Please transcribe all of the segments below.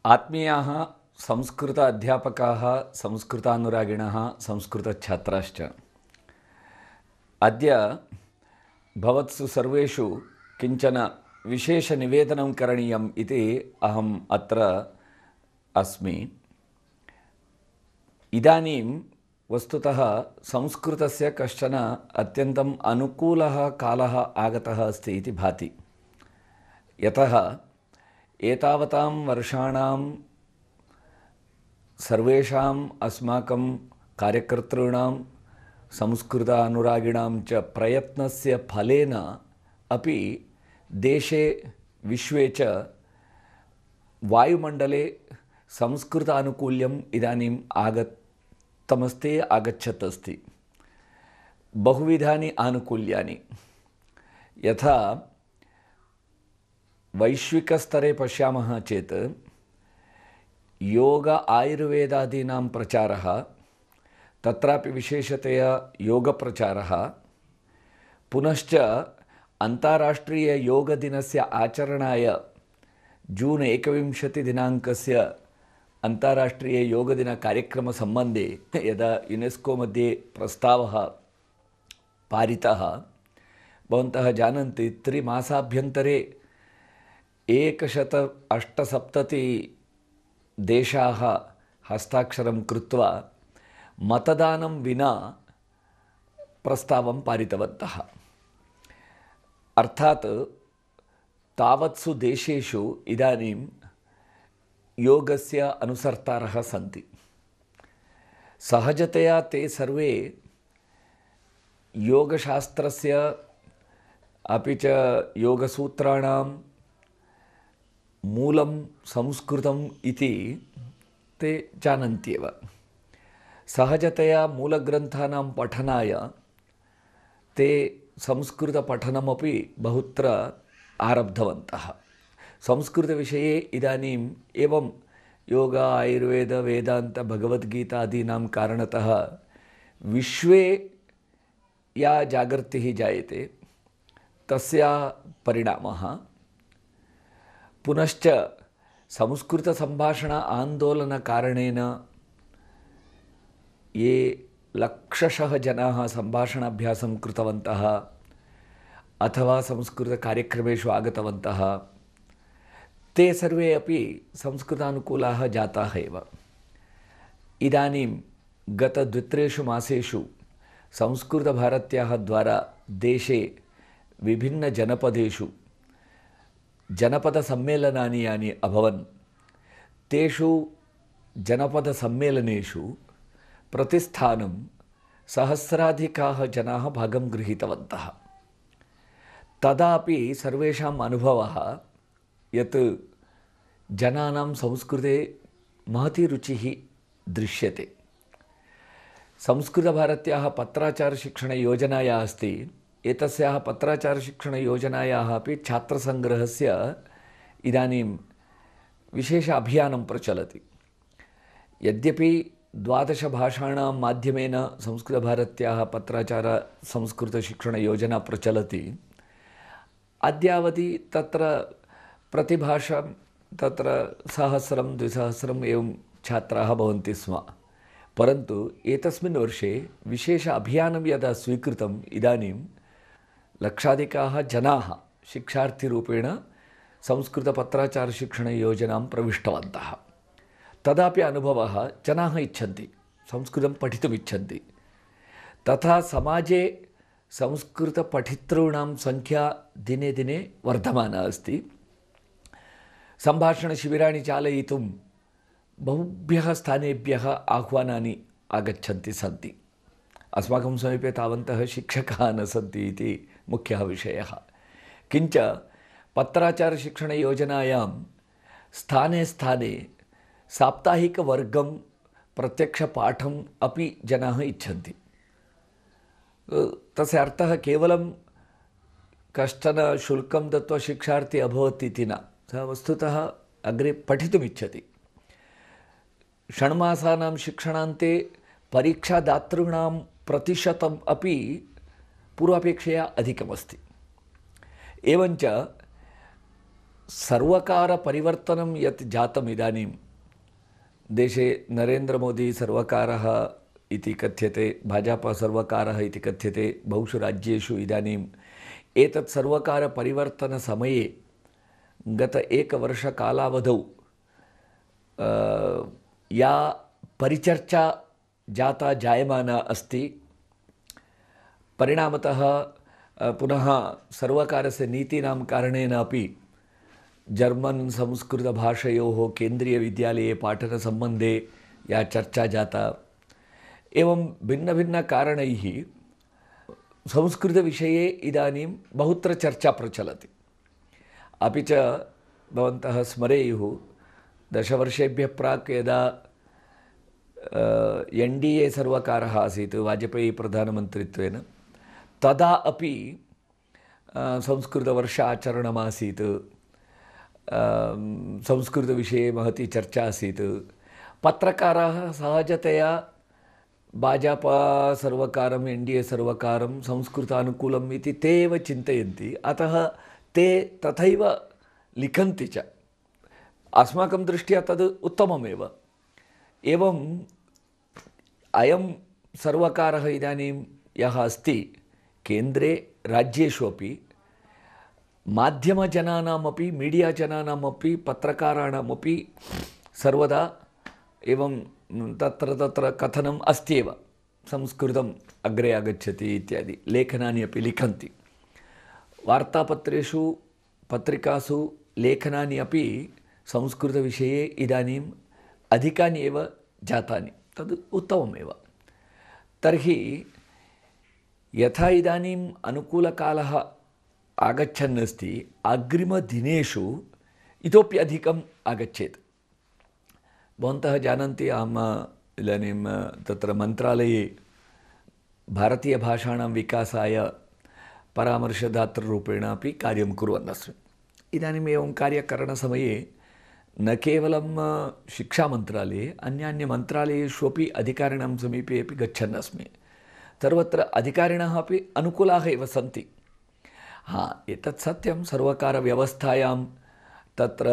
आत्मीयाः संस्कृत अध्यापकाः, संस्कृतानुरागिणः, संस्कृतछात्राश्च, अद्य भवत्सु सर्वेषु किञ्चन विशेषनिवेदनं करणीयम् इति अहम् अत्र अस्मि। इदानीं वस्तुतः संस्कृतस्य कश्चन अत्यन्तम् अनुकूलः कालः आगतः अस्ति इति भाति। यतः एतावतां वर्षाणां सर्वेषाम् अस्माकं कार्यकर्तॄणां संस्कृत अनुरागिणां च प्रयत्नस्य फलेन अपि देशे विश्वे च वायुमण्डले संस्कृतानुकूल्यम् इदानीम् आगच्छत् अस्ति। बहुविधानि आनुकूल्यानि, यथा वैश्विकस्तरे पश्यामः चेत् योग आयुर्वेदादीनां प्रचारः, तत्रापि विशेषतया योगप्रचारः, पुनश्च अन्ताराष्ट्रीययोगदिनस्य आचरणाय जून् 21 दिनाङ्कस्य अन्ताराष्ट्रीययोगदिनकार्यक्रमसम्बन्धे यदा युनेस्को मध्ये प्रस्तावः पारितः, भवन्तः जानन्ति 3 मासाभ्यन्तरे 178 देशाः हस्ताक्षरं कृत्वा मतदानं विना प्रस्तावं पारितवन्तः। अर्थात् तावत्सु देशेषु इदानीं योगस्य अनुसर्तारः सन्ति। सहजतया ते सर्वे योगशास्त्रस्य अपि च योगसूत्राणां मूलं संस्कृतम् इति ते जानन्त्येव। सहजतया मूलग्रन्थानां पठनाय ते संस्कृतपठनमपि बहुत्र आरब्धवन्तः। संस्कृतविषये इदानीम् एवं योग आयुर्वेद वेदान्त भगवद्गीतादीनां कारणतः विश्वे या जागर्तिः जायते तस्याः परिणामः, पुनश्च संस्कृतसम्भाषण आन्दोलनकारणेन ये लक्षशः जनाः सम्भाषणाभ्यासं कृतवन्तः अथवा संस्कृतकार्यक्रमेषु आगतवन्तः, ते सर्वे अपि संस्कृतानुकूलाः जाताः एव। इदानीं गत 2-3 मासेषु संस्कृतभारत्याः द्वारा देशे विभिन्नजनपदेषु जनपदसम्मेलनानि यानि अभवन्, तेषु जनपदसम्मेलनेषु प्रतिस्थानं सहस्राधिकाः जनाः भागं गृहीतवन्तः। तदापि सर्वेषाम् अनुभवः यत् जनानां संस्कृते महती रुचिः दृश्यते। संस्कृतभारत्याः पत्राचारशिक्षणयोजनाया अस्ति। एतस्याः पत्राचारशिक्षणयोजनायाः अपि छात्रसङ्ग्रहस्य इदानीं विशेष अभियानं प्रचलति। यद्यपि 12 भाषाणां माध्यमेन संस्कृतभारत्याः पत्राचार संस्कृतशिक्षणयोजना प्रचलति, अद्यावधि तत्र प्रतिभाषां तत्र 1000-2000 एवं छात्राः भवन्ति स्म। परन्तु एतस्मिन् वर्षे विशेष अभियानं यदा स्वीकृतम्, इदानीं लक्षाधिकाः जनाः शिक्षार्थिरूपेण संस्कृतपत्राचारशिक्षणयोजनां प्रविष्टवन्तः। तदापि अनुभवः, जनाः इच्छन्ति, संस्कृतं पठितुम् इच्छन्ति। तथा समाजे संस्कृतपठितॄणां संख्या दिने दिने वर्धमाना अस्ति। सम्भाषणशिबिराणि चालयितुं बहुभ्यः स्थानेभ्यः आह्वानानि आगच्छन्ति सन्ति। अस्माकं समीपे तावन्तः शिक्षकाः न सन्ति इति मुख्यः विषयः। किञ्च पत्राचारशिक्षणयोजनायां स्थाने स्थाने साप्ताहिकवर्गं प्रत्यक्षपाठम् अपि जनाः इच्छन्ति। तस्य अर्थः केवलं कश्चन शुल्कं दत्वा शिक्षार्थी अभवत् इति न, सः वस्तुतः अग्रे पठितुमिच्छति। षण्मासानां शिक्षणान्ते परीक्षादातॄणां प्रतिशतम् अपि पूर्वापेक्षया अधिकमस्ति। एवञ्च सर्वकारपरिवर्तनं यत् जातम् इदानीं देशे नरेन्द्रमोदी सर्वकारः इति कथ्यते, भाजपा सर्वकारः इति कथ्यते। बहुषु राज्येषु इदानीम् एतत् सर्वकारपरिवर्तनसमये गत एकवर्षकालावधौ या परिचर्चा जायमाना अस्ति, परिणामतः पुनः सर्वकारस्य नीतीनां कारणेन अपि जर्मन् संस्कृतभाषयोः केन्द्रीयविद्यालये पाठनसम्बन्धे या चर्चा जाता, एवं भिन्नभिन्नकारणैः संस्कृतविषये इदानीं बहुत्र चर्चा प्रचलति। अपि च भवन्तः स्मरेयुः, दशवर्षेभ्यः प्राक् यदा NDA सर्वकारः आसीत् वाजपेयी प्रधानमन्त्रित्वेन, तदा अपि संस्कृतवर्ष आचरणमासीत्, संस्कृतविषये महती चर्चा आसीत्। पत्रकाराः सहजतया भाजपा सर्वकारं, NDA सर्वकारं संस्कृतानुकूलम् इति ते एव चिन्तयन्ति, अतः ते तथैव लिखन्ति च। अस्माकं दृष्ट्या तद् उत्तममेव। एवम् अयं सर्वकारः इदानीं यः अस्ति केन्द्रे, राज्येषु अपि माध्यमजनानामपि, मीडिया जनानामपि, पत्रकाराणामपि सर्वदा एवं तत्र कथनम् अस्त्येव, संस्कृतम् अग्रे आगच्छति इत्यादि लेखनानि अपि लिखन्ति। वार्तापत्रेषु, पत्रिकासु लेखनानि अपि संस्कृतविषये इदानीम् अधिकानि एव जातानि, तद् उत्तममेव। तर्हि यथा इदानीम् अनुकूलकालः आगच्छन् अस्ति, अग्रिमदिनेषु इतोपि अधिकम् आगच्छेत्। भवन्तः जानन्ति, अहम् इदानीं तत्र मन्त्रालये भारतीयभाषाणां विकासाय परामर्शदातृरूपेण अपि कार्यं कुर्वन् अस्मि। इदानीम् एवं कार्यकरणसमये न केवलं शिक्षामन्त्रालये, अन्यान्यमन्त्रालयेषु अपि अधिकारिणां समीपे अपि गच्छन् अस्मि। सर्वत्र अधिकारिणः अपि अनुकूलाः एव सन्ति। एतत् सत्यं, सर्वकारव्यवस्थायां तत्र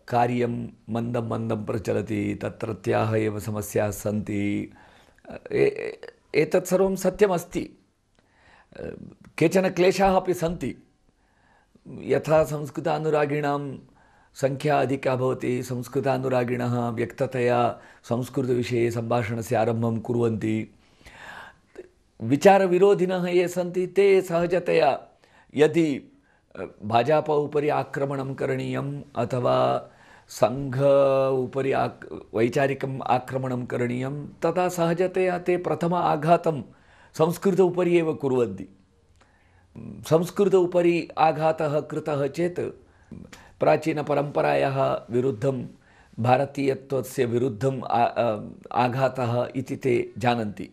कार्यं मन्दं मन्दं प्रचलति, तत्रत्याः एव समस्याः सन्ति, एतत् सर्वं सत्यमस्ति। केचन क्लेशाः अपि सन्ति। यथा संस्कृतानुरागिणां संख्या अधिका भवति, संस्कृतानुरागिणः व्यक्ततया संस्कृतविषये सम्भाषणस्य आरम्भं कुर्वन्ति। विचारविरोधिनः ये सन्ति ते सहजतया यदि भाजपा उपरि आक्रमणं करणीयम् अथवा संघ उपरि वैचारिकम् आक्रमणं करणीयं, तदा सहजतया ते प्रथम आघातं संस्कृत उपरि एव कुर्वन्ति। संस्कृत उपरि आघातः कृतः चेत् प्राचीनपरम्परायाः विरुद्धं, भारतीयत्वस्य विरुद्धं आघातः इति ते जानन्ति।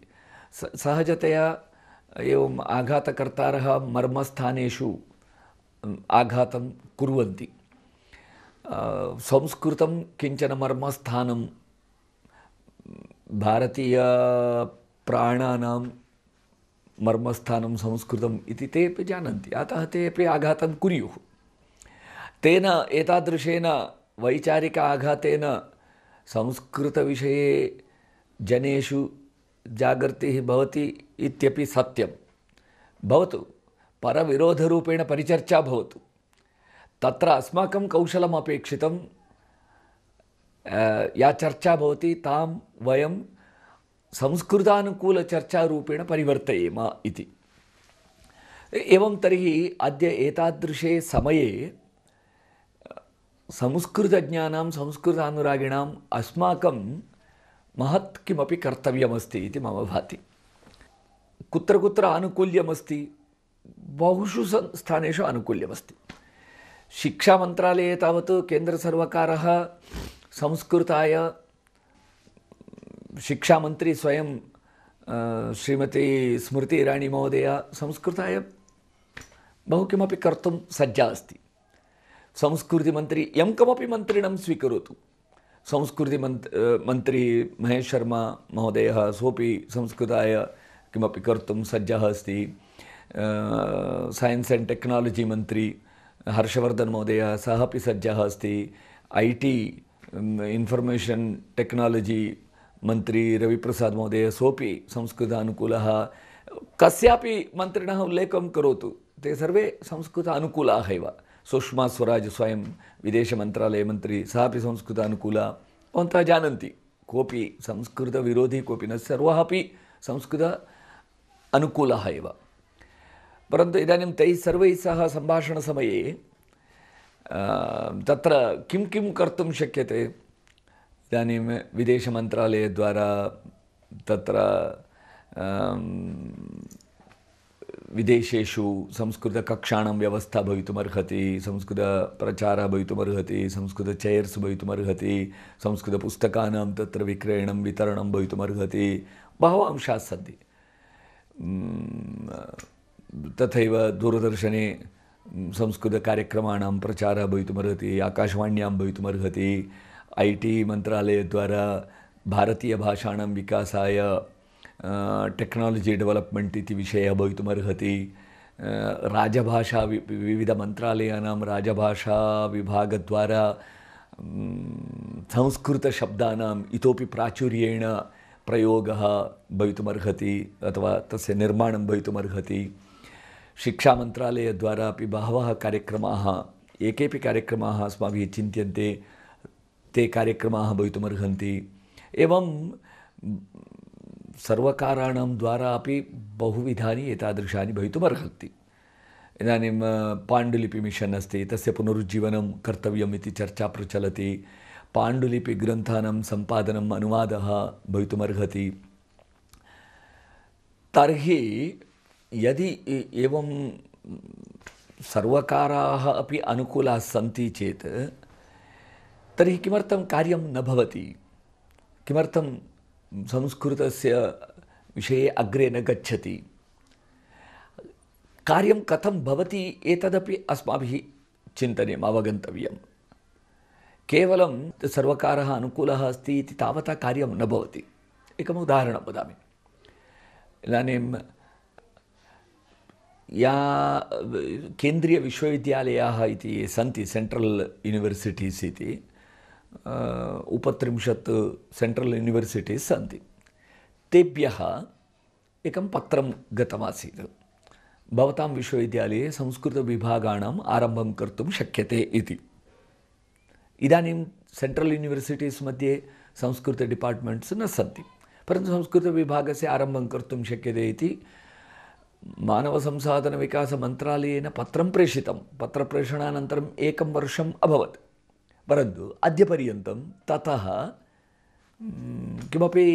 सहजतया एवम् आघातकर्तारः मर्मस्थानेषु आघातं कुर्वन्ति। संस्कृतं किञ्चन मर्मस्थानं, भारतीयप्राणानां मर्मस्थानं संस्कृतम् इति ते अपि जानन्ति, अतः ते अपि आघातं कुर्युः। तेन एतादृशेन वैचारिक आघातेन संस्कृतविषये जनेषु जागर्तिः भवति इत्यपि सत्यं। भवतु, परविरोधरूपेण परिचर्चा भवतु, तत्र अस्माकं कौशलम् अपेक्षितं। या चर्चा भवति तां वयं संस्कृतानुकूलचर्चारूपेण परिवर्तयेम इति। एवं तर्हि अद्य एतादृशे समये संस्कृतज्ञानां, संस्कृतानुरागिणाम् अस्माकं महत् किमपि कर्तव्यमस्ति इति मम भाति। कुत्र कुत्र आनुकूल्यमस्ति, बहुषु स्थानेषु आनुकूल्यमस्ति। शिक्षामन्त्रालये तावत् केन्द्रसर्वकारः संस्कृताय, शिक्षामन्त्री स्वयं श्रीमती स्मृति ईरानी महोदया संस्कृताय बहु किमपि कर्तुं सज्जा अस्ति। संस्कृतिमन्त्री यं कमपि मन्त्रिणं स्वीकरोतु, संस्कृतिमन्त्री महेश शर्मा महोदयः सोपि संस्कृताय किमपि कर्तुं सज्जः अस्ति। सैन्स् एण्ड् टेक्नालजि मन्त्री हर्षवर्धन महोदय सः अपि सज्जः अस्ति। IT इन्फर्मेशन् टेक्नालजि मन्त्री रविप्रसाद महोदय सोपि संस्कृतानुकूलः। कस्यापि मन्त्रिणः उल्लेखं करोतु, ते सर्वे संस्कृतानुकूलाः एव। सुषमा स्वराज स्वयं विदेशमन्त्रालयमन्त्री, सः अपि संस्कृतानुकूला। भवन्तः जानन्ति, कोऽपि संस्कृतविरोधी कोऽपि न, सर्वः अपि संस्कृत अनुकूलः एव। परन्तु इदानीं तैः सर्वैः सह सम्भाषणसमये तत्र किं किं कर्तुं शक्यते? इदानीं विदेशमन्त्रालयद्वारा तत्र विदेशेषु संस्कृतकक्षाणां व्यवस्था भवितुमर्हति, संस्कृतप्रचारः भवितुमर्हति, संस्कृतचेर्स् भवितुमर्हति, संस्कृतपुस्तकानां तत्र विक्रयणं वितरणं भवितुमर्हति, बहवः अंशाः सन्ति। तथैव दूरदर्शने संस्कृतकार्यक्रमाणां प्रचारः भवितुमर्हति, आकाशवाण्यां भवितुमर्हति, IT मन्त्रालयद्वारा भारतीयभाषाणां विकासाय टेक्नालजि डेवलप्मेण्ट् इति विषयः भवितुमर्हति। राजभाषा विविधमन्त्रालयानां राजभाषाविभागद्वारा संस्कृतशब्दानाम् इतोपि प्राचुर्येण प्रयोगः भवितुमर्हति अथवा तस्य निर्माणं भवितुमर्हति। शिक्षामन्त्रालयद्वारा अपि बहवः कार्यक्रमाः, एकेपि कार्यक्रमाः अस्माभिः चिन्त्यन्ते, ते कार्यक्रमाः भवितुमर्हन्ति। एवं सर्वकाराणां द्वारा अपि बहुविधानि एतादृशानि भवितुमर्हन्ति। इदानीं पाण्डुलिपि मिशन् अस्ति, तस्य पुनरुज्जीवनं कर्तव्यम् इति चर्चा प्रचलति। पाण्डुलिपिग्रन्थानां सम्पादनम्, अनुवादः भवितुमर्हति। तर्हि यदि एवं सर्वकाराः अपि अनुकूलाः सन्ति चेत् तर्हि किमर्थं कार्यं न भवति? किमर्थं संस्कृतस्य विषये अग्रे न गच्छति? कार्यं कथं भवति एतदपि अस्माभिः चिन्तनीयम्, अवगन्तव्यम्। केवलं सर्वकारः अनुकूलः अस्ति इति तावता कार्यं न भवति। एकम् उदाहरणं वदामि। इदानीं या केन्द्रीयविश्वविद्यालयाः इति ये सन्ति, सेण्ट्रल् यूनिवर्सिटीस् इति 30 सेण्ट्रल् यूनिवर्सिटीस् सन्ति। तेभ्यः एकं पत्रं गतमासीत्, भवतां विश्वविद्यालये संस्कृतविभागाणाम् आरम्भं कर्तुं शक्यते इति। इदानीं सेण्ट्रल् यूनिवर्सिटीस् मध्ये संस्कृत डिपार्ट्मेण्ट्स् न सन्ति, परन्तु संस्कृतविभागस्य आरम्भं कर्तुं शक्यते इति मानवसंसाधनविकासमन्त्रालयेन पत्रं प्रेषितं। पत्रप्रेषणानन्तरम् 1 वर्षम् अभवत्, परन्तु अद्यपर्यन्तं ततः किमपि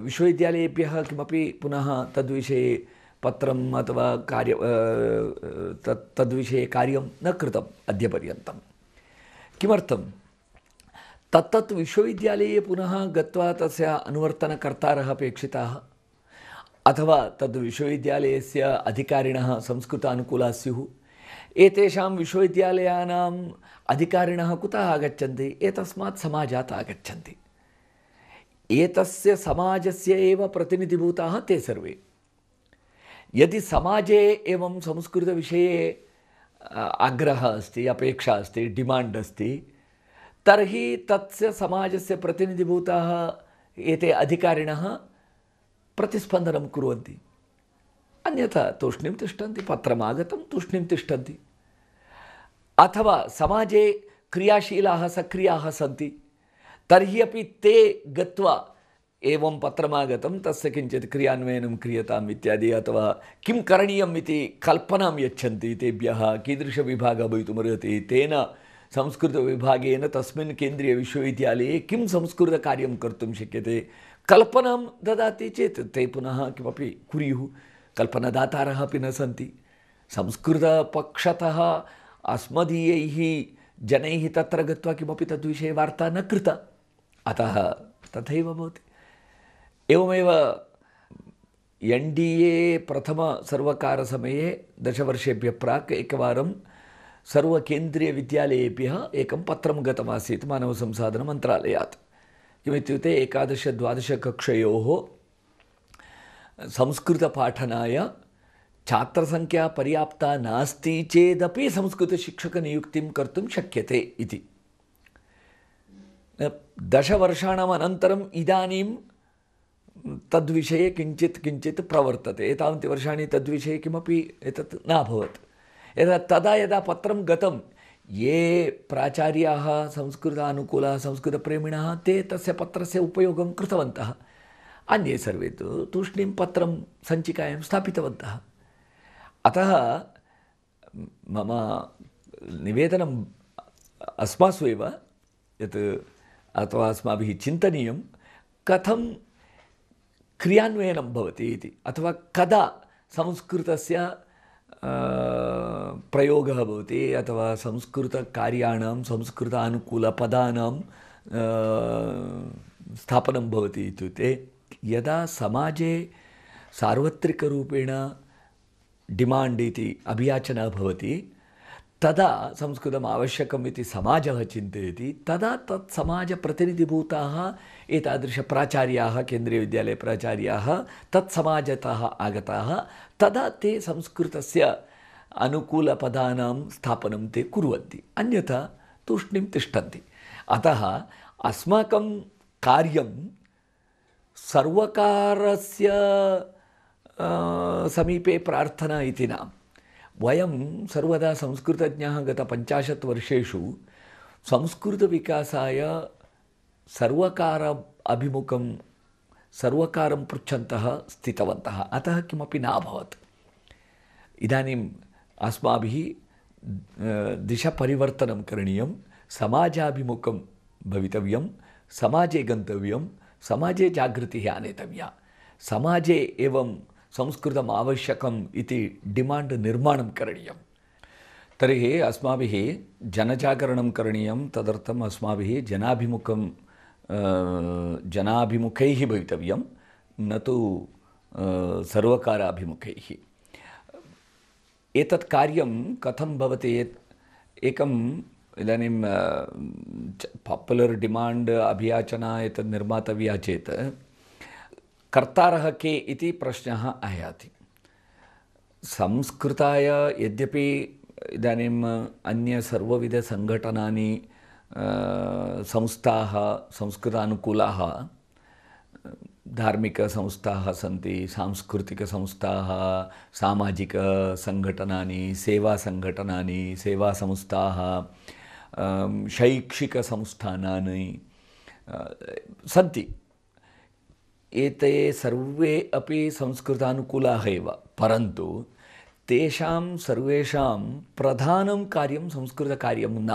विश्वविद्यालयेभ्यः किमपि पुनः तद्विषये पत्रम् अथवा तद्विषये कार्यं न कृतम् अद्यपर्यन्तं। किमर्थं? तत्तत् विश्वविद्यालये पुनः गत्वा तस्य अनुवर्तनकर्तारः अपेक्षिताः, अथवा तद् विश्वविद्यालयस्य अधिकारिणः संस्कृतानुकूलाः स्युः। एतेषां विश्वविद्यालयानाम् अधिकारिणः कुतः आगच्छन्ति? एतस्मात् समाजात् आगच्छन्ति। एतस्य समाजस्य एव प्रतिनिधिभूताः ते सर्वे। यदि समाजे एवं संस्कृतविषये आग्रहः अस्ति, अपेक्षा अस्ति, डिमाण्ड् अस्ति, तर्हि तस्य समाजस्य प्रतिनिधिभूताः एते अधिकारिणः प्रतिस्पन्दनं कुर्वन्ति। अन्यथा तूष्णीं तिष्ठन्ति, पत्रमागतं तूष्णीं तिष्ठन्ति। अथवा समाजे क्रियाशीलाः सक्रियाः सन्ति, तर्हि अपि ते गत्वा एवं पत्रमागतं तस्य किञ्चित् क्रियान्वयनं क्रियताम् इत्यादि, अथवा किं करणीयम् इति कल्पनां यच्छन्ति तेभ्यः। कीदृशविभागः भवितुमर्हति, तेन संस्कृतविभागेन तस्मिन् केन्द्रीयविश्वविद्यालये किं संस्कृतकार्यं कर्तुं शक्यते, कल्पनां ददाति चेत् ते पुनः किमपि कुर्युः। कल्पनादातारः अपि न सन्ति। संस्कृतपक्षतः अस्मदीयैः जनैः तत्र गत्वा किमपि तद्विषये वार्ता न कृता, अतः तथैव भवति। एवमेव NDA प्रथमसर्वकारसमये 10 वर्षेभ्यः प्राक् एकवारं सर्वकेन्द्रीयविद्यालयेभ्यः एकं पत्रं गतमासीत् मानवसंसाधनमन्त्रालयात्। किमित्युक्ते 11-12 कक्षयोः संस्कृतपाठनाय छात्रसंख्या पर्याप्ता नास्ति चेदपि संस्कृतशिक्षकनियुक्तिं कर्तुं शक्यते इति। 10 वर्षाणाम् अनन्तरम् इदानीं तद्विषये किञ्चित् प्रवर्तते। एतावन्ति वर्षाणि तद्विषये किमपि एतत् न अभवत्। तदा यदा पत्रं गतं, ये प्राचार्याः संस्कृतानुकूलाः संस्कृतप्रेमिणः ते तस्य पत्रस्य उपयोगं कृतवन्तः। अन्ये सर्वे तु तूष्णीं पत्रं सञ्चिकायां स्थापितवन्तः। अतः मम निवेदनम् अस्मासु एव यत् अथवा अस्माभिः चिन्तनीयं कथं क्रियान्वयनं भवति इति, अथवा कदा संस्कृतस्य प्रयोगः भवति, अथवा संस्कृतकार्याणां संस्कृतानुकूलपदानां स्थापनं भवति इत्युक्ते यदा समाजे सार्वत्रिकरूपेण डिमाण्ड् इति अभियाचना भवति, तदा संस्कृतम् आवश्यकम् इति समाजः चिन्तयति। तदा तत् समाजप्रतिनिधिभूताः एतादृशप्राचार्याः, केन्द्रीयविद्यालयप्राचार्याः तत्समाजतः आगताः, तदा ते संस्कृतस्य अनुकूलपदानां स्थापनं ते कुर्वन्ति, अन्यथा तूष्णीं तिष्ठन्ति। अतः अस्माकं कार्यं सर्वकारस्य समीपे प्रार्थना इति न। वयं सर्वदा संस्कृतज्ञाः गत 50 वर्षेषु संस्कृतविकासाय सर्वकार अभिमुखं सर्वकारं पृच्छन्तः स्थितवन्तः, अतः किमपि न अभवत्। इदानीम् अस्माभिः दिशपरिवर्तनं करणीयं, समाजाभिमुखं भवितव्यं, समाजे गन्तव्यं, समाजे जागृतिः आनेतव्या, समाजे एवं संस्कृतम् आवश्यकम् इति डिमाण्ड् निर्माणं करणीयं। तर्हि अस्माभिः जनजागरणं करणीयं। तदर्थम् अस्माभिः जनाभिमुखैः भवितव्यं, न तु सर्वकाराभिमुखैः। एतत् कार्यं कथं भवति? एकम् इदानीं पापुलर् डिमाण्ड् अभियाचना एतत् निर्मातव्या चेत् कर्तारः के इति प्रश्नः आयाति। संस्कृताय यद्यपि इदानीम् अन्य सर्वविधसङ्घटनानि संस्थाः संस्कृतानुकूलाः धार्मिकसंस्थाः सन्ति, सांस्कृतिकसंस्थाः, सामाजिकसङ्घटनानि, सेवासङ्घटनानि, सेवासंस्थाः, शैक्षिकसंस्थानानि सन्ति। एते सर्वे अपि संस्कृतानुकूलाः एव, परन्तु तेषां सर्वेषां प्रधानं कार्यं संस्कृतकार्यं न।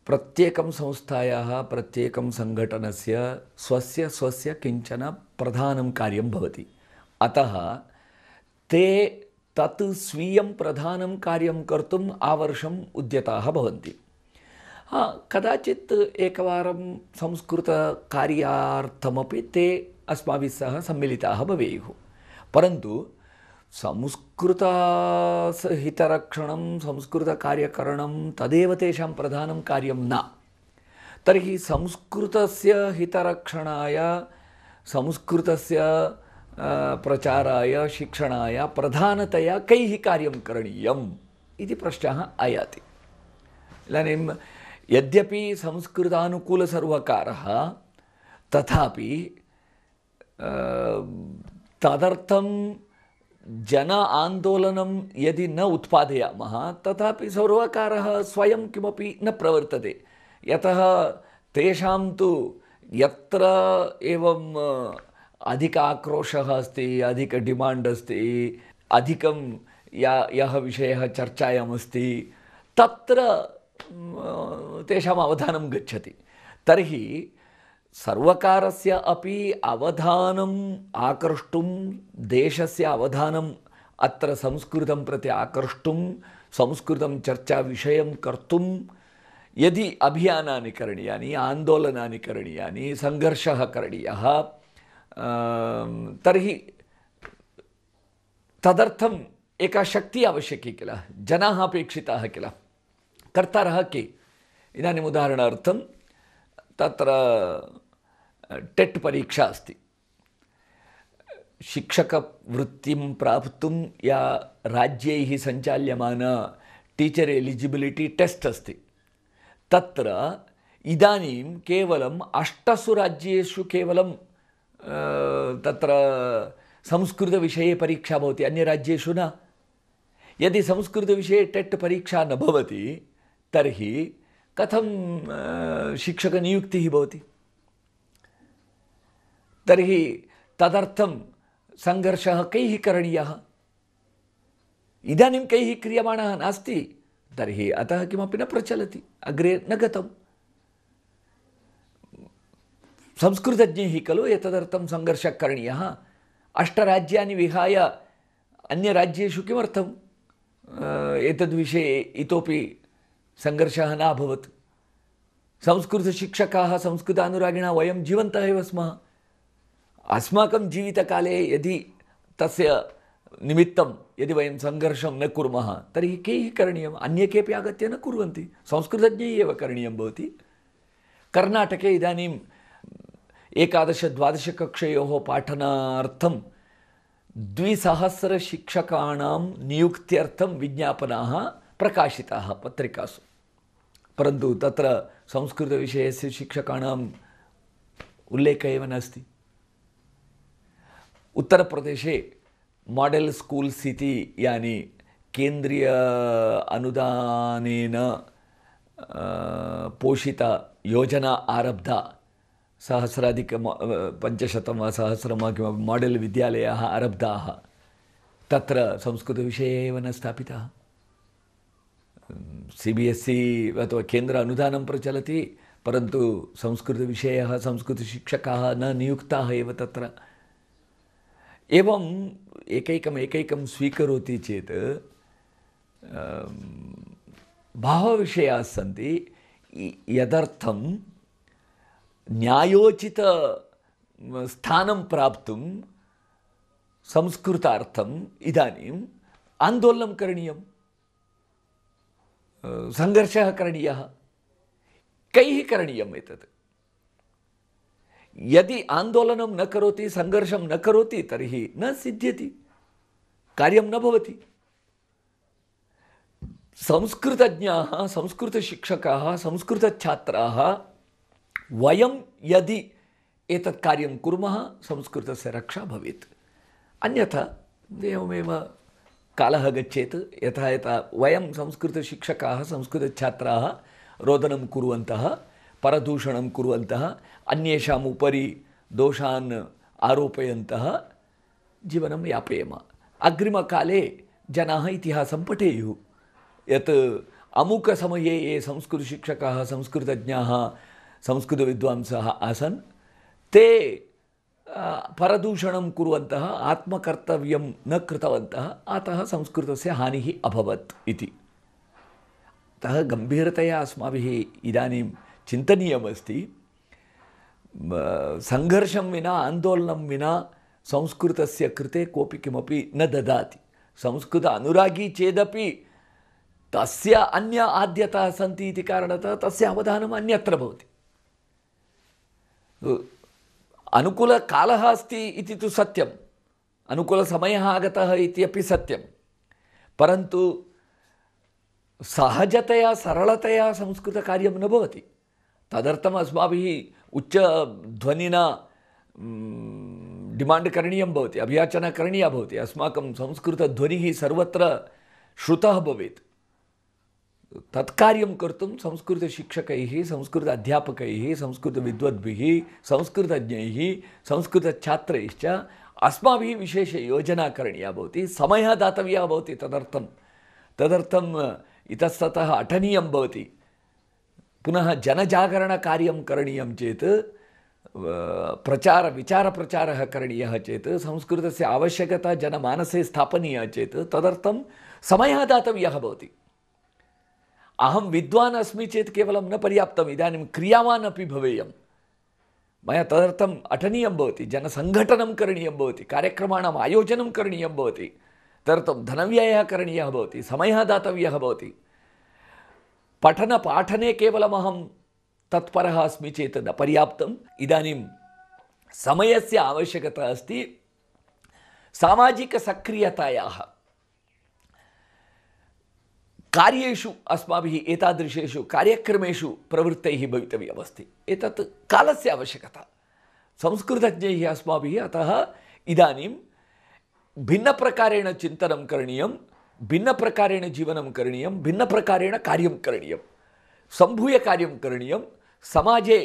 प्रत्येकं संस्थायाः प्रत्येकं सङ्घटनस्य स्वस्य किञ्चन प्रधानं कार्यं भवति। अतः ते तत् स्वीयं प्रधानं कार्यं कर्तुम् आवर्षम् उद्यताः भवन्ति। कदाचित् एकवारं संस्कृतकार्यार्थमपि ते अस्माभिः सह सम्मिलिताः भवेयुः, परन्तु संस्कृतहितरक्षणं संस्कृतकार्यकरणं तदेव तेषां प्रधानं कार्यं न। तर्हि संस्कृतस्य हितरक्षणाय, संस्कृतस्य प्रचाराय, शिक्षणाय प्रधानतया कैः कार्यं करणीयम् इति प्रश्नः आयाति। इदानीं यद्यपि संस्कृतानुकूलसर्वकारः, तथापि तदर्थं जन आन्दोलनं यदि न उत्पादयामः, तथापि सर्वकारः स्वयं किमपि न प्रवर्तते। यतः तेषां तु यत्र एवं अधिक आक्रोशः अस्ति, अधिक डिमाण्ड् अस्ति, अधिकं यः विषयः चर्चायामस्ति, तत्र तेषाम् अवधानं गच्छति। तर्हि सर्वकारस्य अपि अवधानम् आकर्ष्टुं, देशस्य अवधानम् अत्र संस्कृतं प्रति आकर्ष्टुं, संस्कृतं चर्चाविषयं कर्तुं यदि अभियानानि करणीयानि, आन्दोलनानि करणीयानि, सङ्घर्षः करणीयः, तर्हि तदर्थम् एका शक्तिः आवश्यकी किल, जनाः अपेक्षिताः किल, कर्तारः के? इदानीम् उदाहरणार्थं तत्र टेट् परीक्षा अस्ति। शिक्षकवृत्तिं प्राप्तुं या राज्यैः सञ्चाल्यमान टीचर् एलिजिबिलिटी टेस्ट् अस्ति, तत्र इदानीं केवलम् 8 राज्येषु केवलं तत्र संस्कृतविषये परीक्षा भवति, अन्यराज्येषु न। यदि संस्कृतविषये टेट् परीक्षा न भवति तर्हि कथं शिक्षकनियुक्तिः भवति? तर्हि तदर्थं संघर्षः कैः करणीयः? इदानीं कैः क्रियमाणः नास्ति, तर्हि अतः किमपि न प्रचलति, अग्रे न गतम्। संस्कृतज्ञैः खलु एतदर्थं संघर्षः करणीयः। 8 राज्यानि विहाय अन्यराज्येषु किमर्थम् एतद्विषये इतोपि संघर्षः न अभवत्? संस्कृतशिक्षकाः संस्कृतानुरागिणः वयं जीवन्तः एव स्मः। अस्माकं जीवितकाले यदि तस्य निमित्तं यदि वयं संघर्षं न कुर्मः तर्हि कैः करणीयम्? अन्ये केपि आगत्य न कुर्वन्ति, संस्कृतज्ञैः एव करणीयं भवति। कर्णाटके इदानीं 11-12 कक्षयोः पाठनार्थं 200 शिक्षकाणां नियुक्त्यर्थं विज्ञापनाः प्रकाशिताः पत्रिकासु, परन्तु तत्र संस्कृतविषयस्य शिक्षकाणाम् उल्लेखः एव नास्ति। उत्तरप्रदेशे मॉडेल स्कूल्स इति यानि केंद्रीय अनुदानेन पोषिता योजना आरब्धा, 1,500 वा 1,000 वा किमपि मॉडेल विद्यालयाः आरब्धाः, तत्र संस्कृतविषये एव न स्थापितः। CBSE अथवा केन्द्र अनुदानं प्रचलति, परन्तु संस्कृतविषयः संस्कृतशिक्षकाः न नियुक्ताः एव तत्र। एवं एकैकं स्वीकरोति चेत् बहवः विषयाः सन्ति यदर्थं न्यायोचित स्थानं प्राप्तुं संस्कृतार्थम् इदानीम् आन्दोलनं करणीयं, संघर्षः करणीयः। कैः करणीयम् एतत्? यदि आन्दोलनं न करोति, संघर्षं न करोति तर्हि न सिद्ध्यति, कार्यं न भवति। संस्कृतज्ञाः, संस्कृतशिक्षकाः, संस्कृतछात्राः वयं यदि एतत् कार्यं कुर्मः संस्कृतस्य रक्षा भवेत्। अन्यथा एवमेव कालः गच्छेत्। यथा यथा वयं संस्कृतशिक्षकाः, संस्कृतछात्राः रोदनं कुर्वन्तः, परदूषणं कुर्वन्तः, अन्येषाम् उपरि दोषान् आरोपयन्तः जीवनं यापयेम। अग्रिमकाले जनाः इतिहासं पठेयुः यत् अमुकसमये ये संस्कृतशिक्षकाः, संस्कृतज्ञाः, संस्कृतविद्वांसः आसन् ते परदूषणं कुर्वन्तः, आत्मकर्तव्यं न कृतवन्तः, अतः संस्कृतस्य हानिः अभवत् इति। अतः गम्भीरतया अस्माभिः इदानीं चिन्तनीयमस्ति। संघर्षं विना, आन्दोलनं विना संस्कृतस्य कृते कोऽपि किमपि न ददाति। संस्कृत अनुरागी चेदपि तस्य अन्य आद्यताः सन्ति इति कारणतः तस्य अवधानम् अन्यत्र भवति। अनुकूलकालः अस्ति इति तु सत्यम्, अनुकूलसमयः आगतः इति अपि सत्यं, परन्तु सहजतया सरलतया संस्कृतकार्यं न भवति। तदर्थम् अस्माभिः उच्चध्वनिना डिमाण्ड् करणीयं भवति, अभियाचना करणीया भवति। अस्माकं संस्कृतध्वनिः सर्वत्र श्रुतः भवेत्। तत्कार्यं कर्तुं संस्कृतशिक्षकैः, संस्कृत अध्यापकैः, संस्कृतविद्वद्भिः, संस्कृतज्ञैः, संस्कृतछात्रैश्च अस्माभिः विशेषयोजना करणीया भवति, समयः दातव्यः भवति। तदर्थम् इतस्ततः अटनीयं भवति। पुनः जनजागरणकार्यं करणीयं चेत्, विचारप्रचारः करणीयः चेत्, संस्कृतस्य आवश्यकता जनमानसे स्थापनीया चेत् तदर्थं समयः दातव्यः भवति। अहं विद्वान् अस्मि चेत् केवलं न पर्याप्तम्, इदानीं क्रियावान् अपि भवेयम्। मया तदर्थम् अटनीयं भवति, जनसङ्घटनं करणीयं भवति, कार्यक्रमाणाम् आयोजनं करणीयं भवति, तदर्थं धनव्ययः करणीयः भवति, समयः दातव्यः भवति। पठनपाठने केवलम् अहं तत्परः अस्मि चेत् न पर्याप्तम्। इदानीं समयस्य आवश्यकता अस्ति, सामाजिकसक्रियतायाः कार्येषु अस्माभिः एतादृशेषु कार्यक्रमेषु प्रवृत्तैः भवितव्यमस्ति। एतत् कालस्य आवश्यकता। संस्कृतज्ञैः अस्माभिः अतः इदानीं भिन्नप्रकारेण चिन्तनं करणीयं, भिन्नप्रकारेण जीवनं करणीयं, भिन्नप्रकारेण कार्यं करणीयं, सम्भूय कार्यं करणीयं, समाजे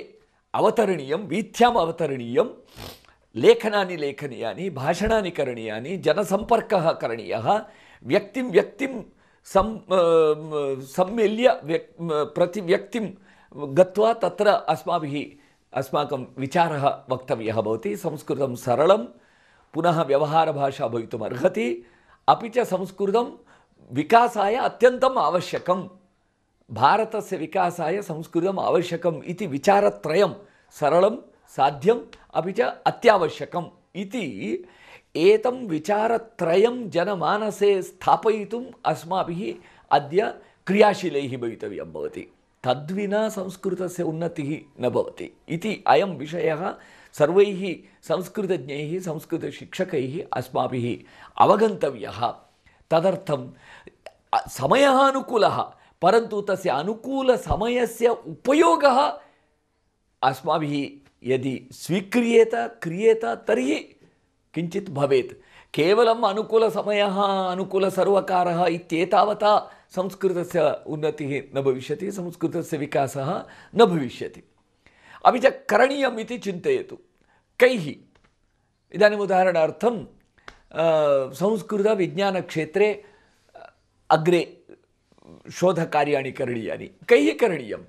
अवतरणीयं, वीथ्याम् अवतरणीयं, लेखनानि लेखनीयानि, भाषणानि करणीयानि, जनसम्पर्कः करणीयः, व्यक्तिं सम्मिल्य प्रति व्यक्तिं गत्वा तत्र अस्माकं विचारः वक्तव्यः भवति। संस्कृतं सरलं पुनः व्यवहारभाषा भवितुम् अर्हति, अपि च संस्कृतं विकासाय अत्यन्तम् आवश्यकं। भारतस्य विकासाय संस्कृतम् आवश्यकम् इति विचारत्रयं सरलं, साध्यम् अपि च अत्यावश्यकम् इति एतं विचारत्रयं जनमानसे स्थापयितुम् अस्माभिः अद्य क्रियाशीलैः भवितव्यं भवति। तद्विना संस्कृतस्य उन्नतिः न भवति इति अयं विषयः सर्वैः संस्कृतज्ञैः संस्कृतशिक्षकैः अस्माभिः अवगन्तव्यः। तदर्थं समयः अनुकूलः, परन्तु तस्य अनुकूलसमयस्य उपयोगः अस्माभिः यदि स्वीक्रियेत क्रियेत तर्हि किञ्चित् भवेत्। केवलम् अनुकूलसमयः अनुकूलसर्वकारः इत्येतावता संस्कृतस्य उन्नतिः न भविष्यति, संस्कृतस्य विकासः न भविष्यति। अपि च करणीयम् इति चिन्तयतु। कैः? इदानीम् उदाहरणार्थं संस्कृतविज्ञानक्षेत्रे अग्रे शोधकार्याणि करणीयानि। कैः करणीयं?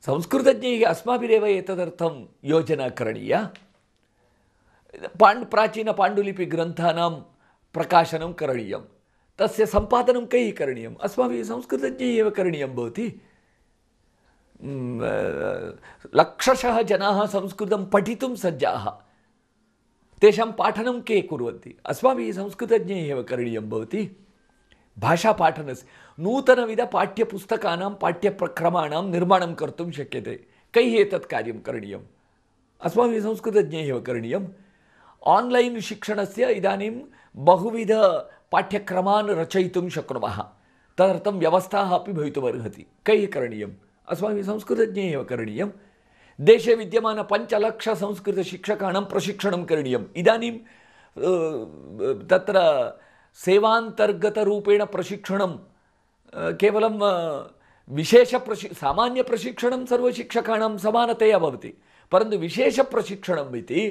संस्कृतज्ञैः अस्माभिरेव एतदर्थं योजना करणीया। प्राचीनपाण्डुलिपिग्रन्थानां प्रकाशनं करणीयं, तस्य सम्पादनं कैः करणीयम्? अस्माभिः संस्कृतज्ञैः एव करणीयं भवति। लक्षशः जनाः संस्कृतं पठितुं सज्जाः, तेषां पाठनं के कुर्वन्ति? अस्माभिः संस्कृतज्ञैः एव करणीयं भवति। भाषापाठनस्य नूतनविधपाठ्यपुस्तकानां पाठ्यक्रमाणां निर्माणं कर्तुं शक्यते। कैः एतत् कार्यं करणीयम्? अस्माभिः संस्कृतज्ञैः एव करणीयम्। आन्लैन् शिक्षणस्य इदानीं बहुविधपाठ्यक्रमान् रचयितुं शक्नुमः, तदर्थं व्यवस्थाः अपि भवितुमर्हति। कैः करणीयम्? अस्माभिः संस्कृतज्ञैः एव करणीयं। देशे विद्यमान 5 लाख संस्कृतशिक्षकाणां प्रशिक्षणं करणीयम्। इदानीं तत्र सेवान्तर्गतरूपेण प्रशिक्षणं केवलं सामान्यप्रशिक्षणं सर्वशिक्षकाणां समानतया भवति, परन्तु विशेषप्रशिक्षणम् इति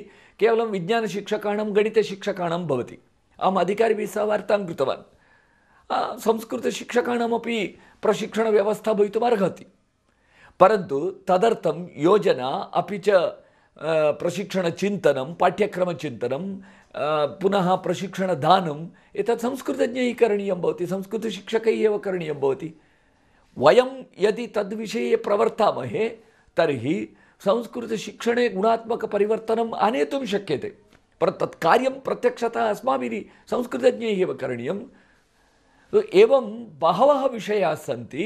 केवलं विज्ञानशिक्षकाणां गणितशिक्षकाणां भवति। अहम् अधिकारिभिः सह वार्तां कृतवान्। संस्कृतशिक्षकाणामपि प्रशिक्षणव्यवस्था भवितुमर्हति, परन्तु तदर्थं योजना अपि च प्रशिक्षणचिन्तनं, पाठ्यक्रमचिन्तनं, पुनः प्रशिक्षणदानम् एतत् संस्कृतज्ञैः करणीयं भवति, संस्कृतशिक्षकैः एव करणीयं भवति। वयं यदि तद्विषये प्रवर्तामहे तर्हि संस्कृतशिक्षणे गुणात्मकपरिवर्तनम् आनेतुं शक्यते, परन्तु तत् कार्यं प्रत्यक्षतः अस्माभिः संस्कृतज्ञैः एव करणीयम्। एवं बहवः विषयाः सन्ति।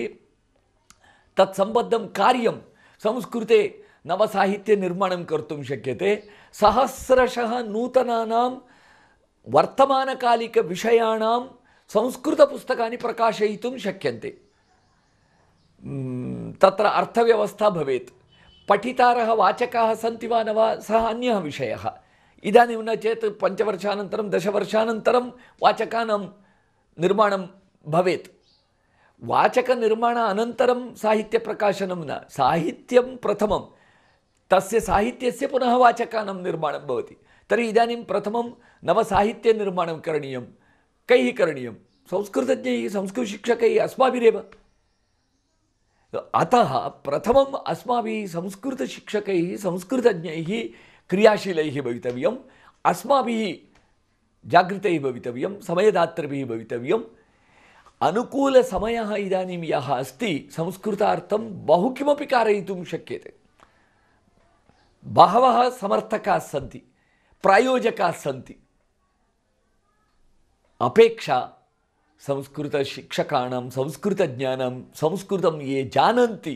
तत्सम्बद्धं कार्यं संस्कृते नवसाहित्यनिर्माणं कर्तुं शक्यते। सहस्रशः नूतनानां वर्तमानकालिकविषयाणां संस्कृतपुस्तकानि प्रकाशयितुं शक्यन्ते। तत्र अर्थव्यवस्था भवेत्, पठितारः वाचकाः सन्ति वा न वा सः अन्यः विषयः। इदानीं न चेत् 5 वर्षानन्तरं 10 वर्षानन्तरं वाचकानां निर्माणं भवेत्। वाचकनिर्माण अनन्तरं साहित्यप्रकाशनं न, साहित्यं प्रथमं, तस्य साहित्यस्य पुनः वाचकानां निर्माणं भवति। तर्हि इदानीं प्रथमं नवसाहित्यनिर्माणं करणीयं। कैः करणीयं? संस्कृतज्ञैः, संस्कृतशिक्षकैः, अस्माभिरेव। अतः प्रथमम् अस्माभिः संस्कृतशिक्षकैः संस्कृतज्ञैः क्रियाशीलैः भवितव्यम्। अस्माभिः जागृतैः भवितव्यं, समयदातृभिः भवितव्यम्। अनुकूलसमयः इदानीं यः अस्ति संस्कृतार्थं बहु किमपि कारयितुं शक्यते। बहवः समर्थकाः सन्ति, प्रायोजकाः सन्ति। अपेक्षा संस्कृतशिक्षकाणां, संस्कृतज्ञानां, संस्कृतं ये जानन्ति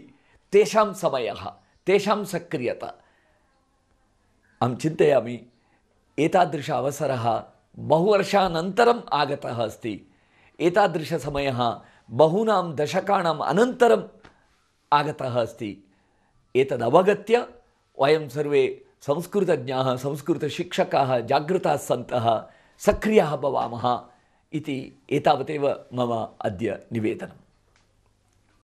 तेषां समयः, तेषां सक्रियता। अहं चिन्तयामि एतादृश अवसरः बहुवर्षानन्तरम् आगतः अस्ति। एतादृशसमयः बहूनां दशकाणाम् अनन्तरम् आगतः अस्ति। एतदवगत्य वयं सर्वे संस्कृतज्ञाः, संस्कृतशिक्षकाः जागृताः सन्तः सक्रियाः भवामः इति एतावदेव मम अद्य निवेदनम्।